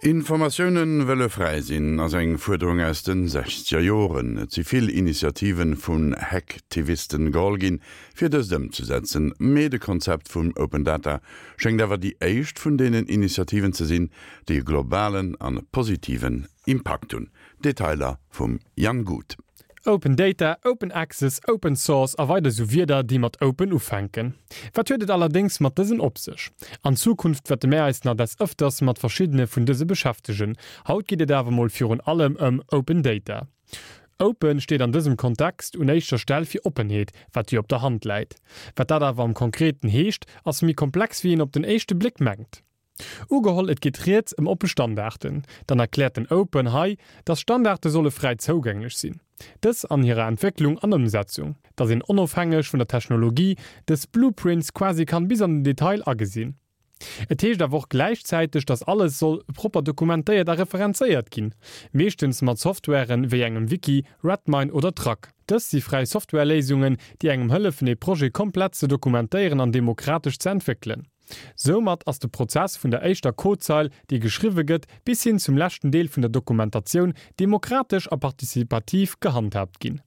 Informatioune wëlle fräi sinn, ass eng Fuerderung aus de sechzeger Joren. Et si vill Initiative vun Hacktivisten geholl ginn, fir dëst ëmzesetzen. Mee de Konzept vum Open Data schéngt awer déi éischt vun deenen Initiativen ze sinn, déi e globalen an positiven Impakt hunn. Detailer vum Jan Guth. Open Data, Open Access, Open Source a weider sou Wierder, déi mat Open ufänken. Wat huet et allerdéngs mat dësen op sech? An Zukunft wäerte mär eis nach des Ëfters mat verschiddene vun dëse beschäftegen. Haut geet et awer mol virun allem ëm Open Data. Open steet an dësem Kontext un éischter Stell fir Oppenheet, wat jo op der Hand läit. Wat dat awer am Konkreten heescht, ass méi komplex wéi een op den éischte Bléck mengt. Ugeholl et geet rieds ëm oppe Standarten, dann erkläert den Open hei, dass Standarte solle fräi zougänglech sinn, dës an hirer Entwécklung an Ëmsetzung, dass een onofhängeg vun der Technologie dës Blueprints quasi kann bis an den Detail agesinn. Et heescht awer och gläichzäiteg, dass alles soll propper dokumentéiert a referenzéiert ginn, meeschtens mat Softwaren wéi engem Wiki, Redmine oder Trac. Dës si fräi Softwareléisungen, déi engem hëllefen ee Projet komplett ze dokumentéieren an demokratesch ze entwéckelen. Soumat ass de Prozess vun der éischter Codezeil, déi geschriwwe gëtt, bis hin zum leschten Deel vun der Dokumentatioun demokratesch a participativ gehandhaabt ginn.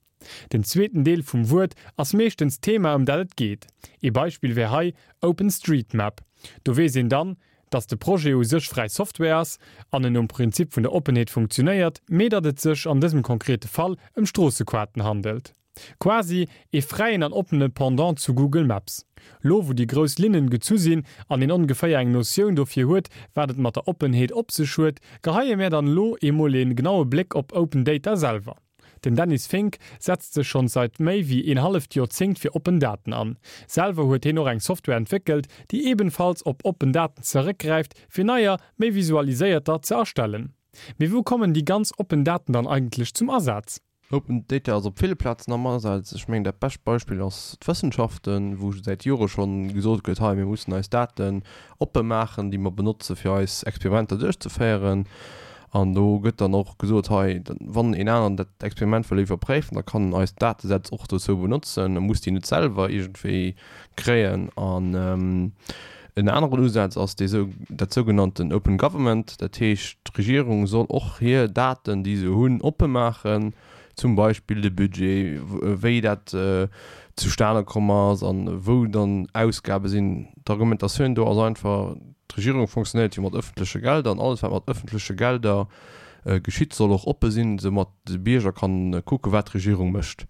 Den zweeten Deel vum Wuert ass meeschtens d'Thema ëm dat et geet. Ee Beispill wär hei OpenStreetMap. Do weess een dann, datt de Projet u sech fräi Software ass an en nom Prinzip vun der Oppenheet funktionéiert, mee datt et sech an dësem konkrete Fall ëm Stroossequarten handelt. Quasi ee fräien an oppene Pendant zu Google Maps. Lo wou déi grouss Linnen gezu sinn an een ongeféier eng Notioun dofir huet wat et mat der Oppenheet op sech huet, geheie mär dann lo eemol een genaue Bléck op Open Data selwer. Den Dennis Fink setzt sech schonns seit méi wéi een halleft Joerzéngt fir oppen Daten an. Selwer huet heen och eng Software entwéckelt, déi ebenfalls op oppen Daten zeréckgräift fir neier, méi visualiséierter ze erstellen. Mee wou kommen déi ganz oppen Daten dann eigentlech zum Asaz? Open Data ass op ville Plazen am Asaz. Ech mengen, dat bescht Beispill ass d'Wëssenschaften, wou säit Jore schonn gesot gëtt, hei, mir mussen eis Daten oppe maachen, déi mer benotze fir eis Experimenter duerchzeféieren. An do gëtt dann och gesot, hei, wann een aneren dat Experiment wëll iwwerpréifen, da kann en eis Datesätz och dozou benotzen, e muss déi net selwer iergendwéi kréien. An en aneren Usaz ass dee sou, dat sougenannten Open Government, dat heescht, d'Regierung soll och hir Daten, déi se hunn, oppe maachen, zum Beispill de Budget, wéi dat zustane komm ass a wou dann Ausgabe sinn. D'Argumentatioun do ass einfach, d'Regierung fonctionnéiert jo mat ëffentleche Gelder an alles, wat mat ëffentleche Gelder geschitt, soll och oppe sinn, soumat de Bierger kann kucken, wat d'Regierung mécht.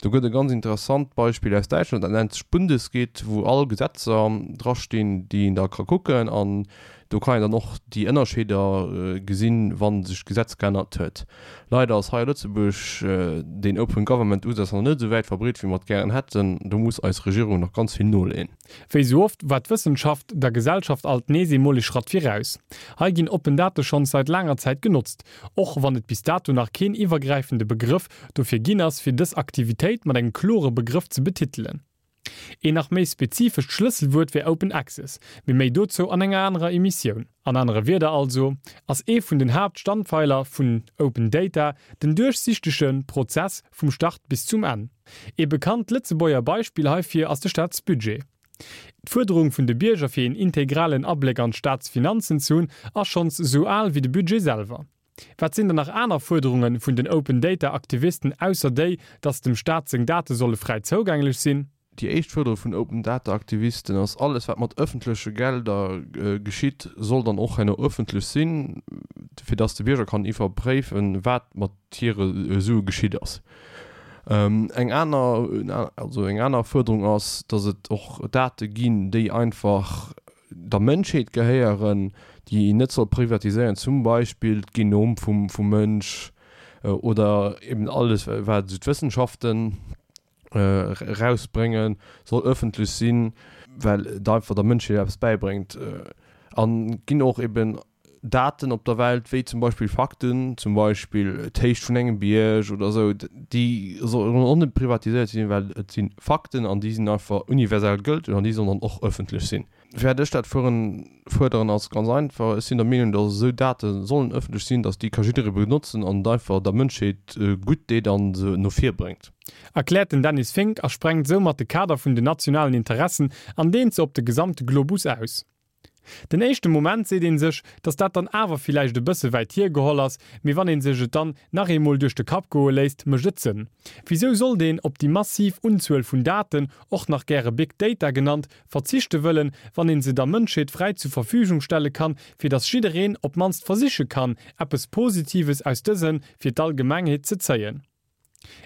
Do gëtt e ganz interessant Beispill aus Däitschland, dat nennt sech Bundesgit, wou all Gesetzer drastinn, déi een da ka kucken. An do kann een dann och déi Ënnerscheeder gesinn, wa sech d'Gesetz geännert huet. Leider ass hei a Lëtzebuerg deen Open Government Usaz nach net esou wäit verbreet, wéi mer et gären hätten. Do muss eis Regierung nach ganz vill noleeën. Wéi sou oft war d'Wëssenschaft der Gesellschaft alt nees emol ee Schratt viraus. Hei ginn oppen Date schonns seit laanger Zäit genotzt, och wann et bis dato nach keen iwwergräifende Begrëff dofir ginn ass, fir dës Aktivitéit mat engem klore Begrëff ze betitelen. Een nach méi spezifescht Schlësselwuert wär Open Access, mee méi dozou an enger anerer Emissioun. An anere Wierder also, ass ee vun den Haaptstandpfeiler vun Open Data den duerchsichtege Prozess vum Start bis zum Enn. Ee bekannt Lëtzebuerger Beispill heifir ass de Staatsbudget. D'Fuerderung vun de Bierger fir een integralen Abléck an d'Staatsfinanzen ze hunn ass schonns esou al wéi de Budget selwer. Wat sinn dann nach aner Fuerderunge vun den Open Data Aktivisten ausser déi, datt dem Staat seng Date solle fräi zougänglech sinn? Déi éischt Fuerderung vun Open Data Aktivisten ass, alles wat mat ëffentleche Gelder geschitt, soll dann och herno ëffentlech sinn, fir datt de Bierger kann iwwerpréifen, wat mat hire Sue geschitt ass. Eng aner, also eng aner Fuerderung ass, datt et och Date ginn, déi einfach der Mënschheet gehéieren, déi een net soll privatiséieren, zum Beispill d'Genom vum Mënsch oder eben alles wat esou d'Wëssenschaften erausbréngen, soll ëffentlech sinn, well et einfach der Mënschheet eppes bäibréngt. An et ginn och eben Daten op der Welt, wéi zum Beispill Fakten, zum Beispill d'Héicht vun engem Bierg oder esou, déi sollen och net privatiséiert sinn, well et si Fakten an déi sinn einfach universell gëlteg an déi sollen dann och ëffentlech sinn. Firwat ech dat fuerderen, ass ganz einfach, Ech sinn der Meenung, datt esou Date sollen ëffentlech sinn, datt déi ka jidderee benotzen an et einfach der Mënschheet gutt deet an se no vir bréngt. Erkläert den Dennis Fink a sprengt soumat de Kader vun den nationalen Interessen an deent se op de gesamte Globus aus. Den éischte Moment seet een sech, dass dat dann awer villäicht e bësse wäit hiergeholl ass, mee wann een sech et dann nach eemol duerch de Kapp goe léisst, mécht et Sënn. Wisou sollt een op déi massiv Unzuel vun Daten, och nach gäre Big Data genannt, verzichte wëllen, wann een se der Mënschheet fräi zur Verfügung stelle kann, fir dass jiddereen op mannst versiche kann, eppes Positives aus dëse fir d'Allgemengheet ze zéien?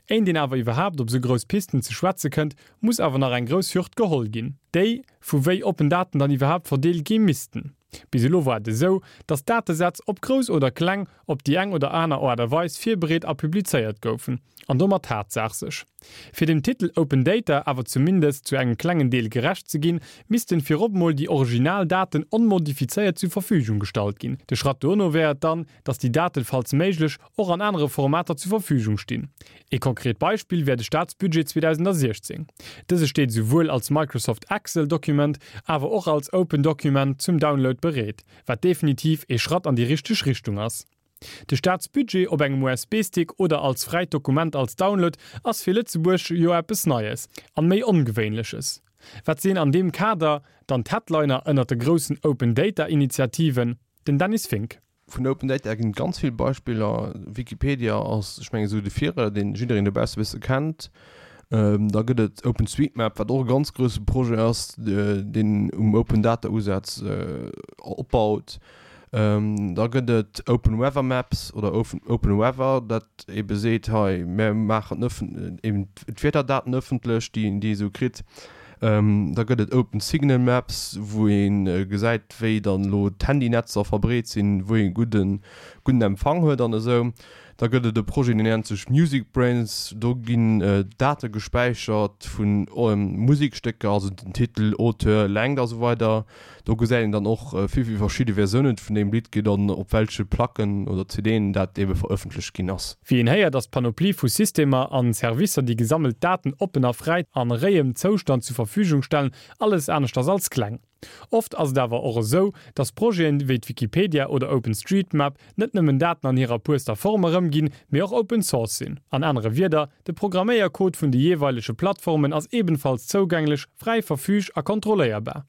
Éint een awer iwwerhaapt op sou grouss Pisten ze schwätze kënnt, muss awer nach eng grouss Hürd geholl ginn, déi vu wéi oppen Daten dann iwwerhaapt verdeelt gi missten. Bis elo war et esou, datt Datesätz, ob grouss oder kleng, op déi eng oder aner Aart a Weis virbereet a publizéiert goufen, an domat d'Haaptsaach sech. Fir dem Titel Open Data awer zumindest zu engem klengen Deel gerecht ze ginn, missten virop mol déi original Daten onmodifizéiert zu Verfügung gestallt ginn. De Schratt dono wär et dann, datt déi Daten, falls méiglech, och an anere Formater zur Verfügung stinn. Ee konkret Beispill wär de Staatsbudget 2016. Dëse steet esouwuel als Microsoft Excel Document awer och als Open Document zum Download bereet, wat definitiv ee Schratt an déi richteg Richtung ass. De Staatsbudget op engem USB-Stick oder als fräit Dokument als Download ass fir Lëtzebuerg jo eppes Neies an méi Ongewéinleches. Wat sinn an deem Kader dann d'Headliner ënnert de groussen Open Data Initiativen? Den Dennis Fink. Vun Open Data ginn et ganz vill Beispiller. Wikipedia ass, ech mengen, esou de Virreider, deen jiddereen dobausse e bësse kennt. Da gëtt et OpenStreetMap, wat och e ganz grousse Projet ass, deen um Open Data Usaz opbaut. Da gëtt et Open Weather Maps oder Open Weather, dat ebe seet, hei mär maachen eben d'Wiederdaten ëffentlech, déi een esou kritt. Da gëtt et Open Signal Maps, wou ee gesäit, wéi dann elo d'Handynetzer verbreet sinn, wou ee gudden gudden Empfang huet an esou. Da gëtt et e Projet, deen nennt sech Music Brains. Do ginn Date gespäichert vu Musekstécker, also den Titel, Auteur, Längt a sou weider. Do gesäit een dann och, wéi vill verschidde Versiounen et vun deem Lidd gëtt an op welche Placken oder CDen dat ebe verëffentlecht ginn ass. Wéi een héiert, ass d'Panoplie vu Systemer an Servicer, déi gesammelt Daten oppen a fräi an réiem Zoustand zu Verfügung stellen, alles aneschters als kleng. Oft ass et awer och esou, dass Projeten wéi d'Wikipedia oder OpenStreetMap net nëmmen Daten an hirer puerster Form erëmginn, mee och Open Source sinn. An anere Wierder, de Programméiercode vun de jeeweilege Plattformen ass ebenfalls zougänglech, fräi verfüg a kontrolléierbar.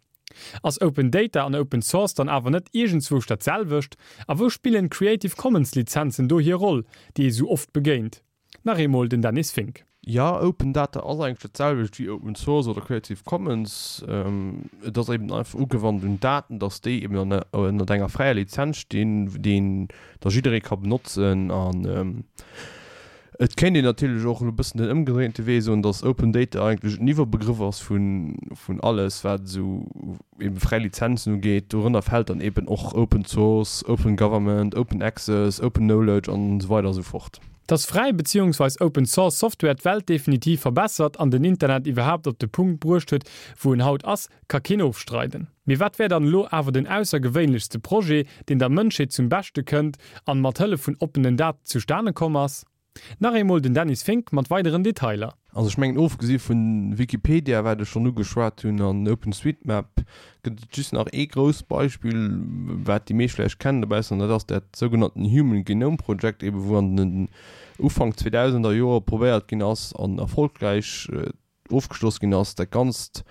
Ass Open Data an Open Source dann awer net iergendzwousch dat selwecht? A wou spillen Creative Commons Lizenzen do hir Roll, déi ee sou oft begéint? Nach eemol den Dennis Fink. Jo, Open Data ass eigentlech dat selwecht wéi Open Source oder Creative Commons. Et ass eben einfach ugewannt un Daten, dass déi eben ënnert enger fräier Lizenz stinn, déi een da jidderee ka benotzen. An Et kéint een natierlech och elo e bëssen den ëmgedréinte Wee soen, datt Open Data eigentlech en Iwwerbegrëff ass vun alles, wat esou ebe fräi Lizenzen ugeet. Dorënner fält dann eben och Open Source, Open Government, Open Access, Open Knowledge an esou weider a sou fort. Dass fräi beziehungsweis Open Source Software d'Welt definitiv verbessert an den Internet iwwerhaapt op de Punkt bruecht huet, wou en haut ass, ka keen ofstreiden. Mee wat wär dann elo awer den aussergewéinlechste Projet, deen der Mënschheet zum Beschte kënnt an mat Hëllef vun oppenen Daten zustane komm ass? Nach eemol den Dennis Fink mat weideren Detailer. Also ech mengen ofgesi vun Wikipedia, wat ech schonn ugeschwat hunn, an OpenStreetMap gëtt et just nach ee grousst Beispill, wat déi meescht vläicht kennen dobaussen, an dat ass dat sougenannten Human Genome Project, ebe wou an den Ufank 2000er Joer probéiert ginn ass an erfolgräich ofgeschloss ginn ass, dat ganzt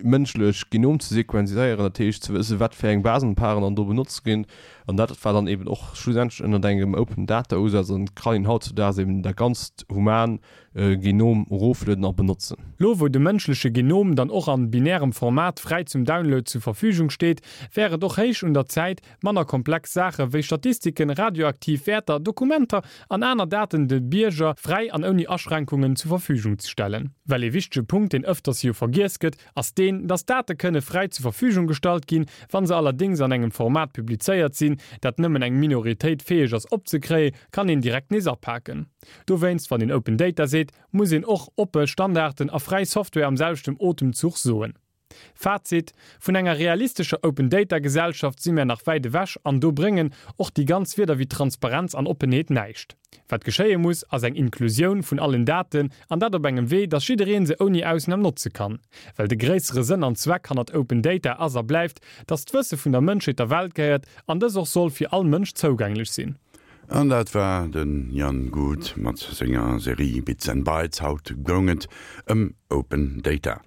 mënschlech Genom ze sequenziséieren, dat heescht ze wëssen, wat fir eng Basenparen dann do benotzt ginn. An dat war dann eben och schlussendlech ënnert engem Open Data Usaz an et kann een hautzudaags eben dat ganzt human Genom eroflueden a benotzen. Lo wou de mënschleche Genom dann och an binärem Format fräi zum Download zu Verfügung steet, wär et och héich un der Zäit, Manner komplex Saache wéi Statistiken, radioaktiv Wäerter, Dokumenter an aner Daten de Bierger fräi an ouni Aschränkungen zu Verfügung ze stellen. Well ee wichtege Punkt, deen ëfters jo vergiess gëtt, ass deen, dass Date kënne fräi zu Verfügung gestallt ginn, wa se allerdéngs an engem Format publizéiert sinn, dat nëmmen eng Minoritéit fäeg ass opzekréie, kann een direkt nees apaken. Dowéinst, wann een Open Data seet, muss een och oppe Standarden a fräi Software am selwechten Otemzuch soen. Fazit, Vun enger realistescher Open Data Gesellschaft si mär nach wäit ewech an do bréngen och déi ganz Wierder wéi Transparenz an Oppenheet näischt. Wat geschéie muss, ass eng Inklusioun vun allen Daten an dat op engem Wee, dass jiddereen se ouni Ausnam notze kann. Well de gréissere Sënn an Zweck hannert Open Data ass a bleift, dass d'Wësse vun der Mënschheet der Welt gehéiert an dës och soll fir all Mënsch zougänglech sinn. An dat war de Jan Guth mat senger Serie Bits and Bytes. Haut goung et ëm Open Data.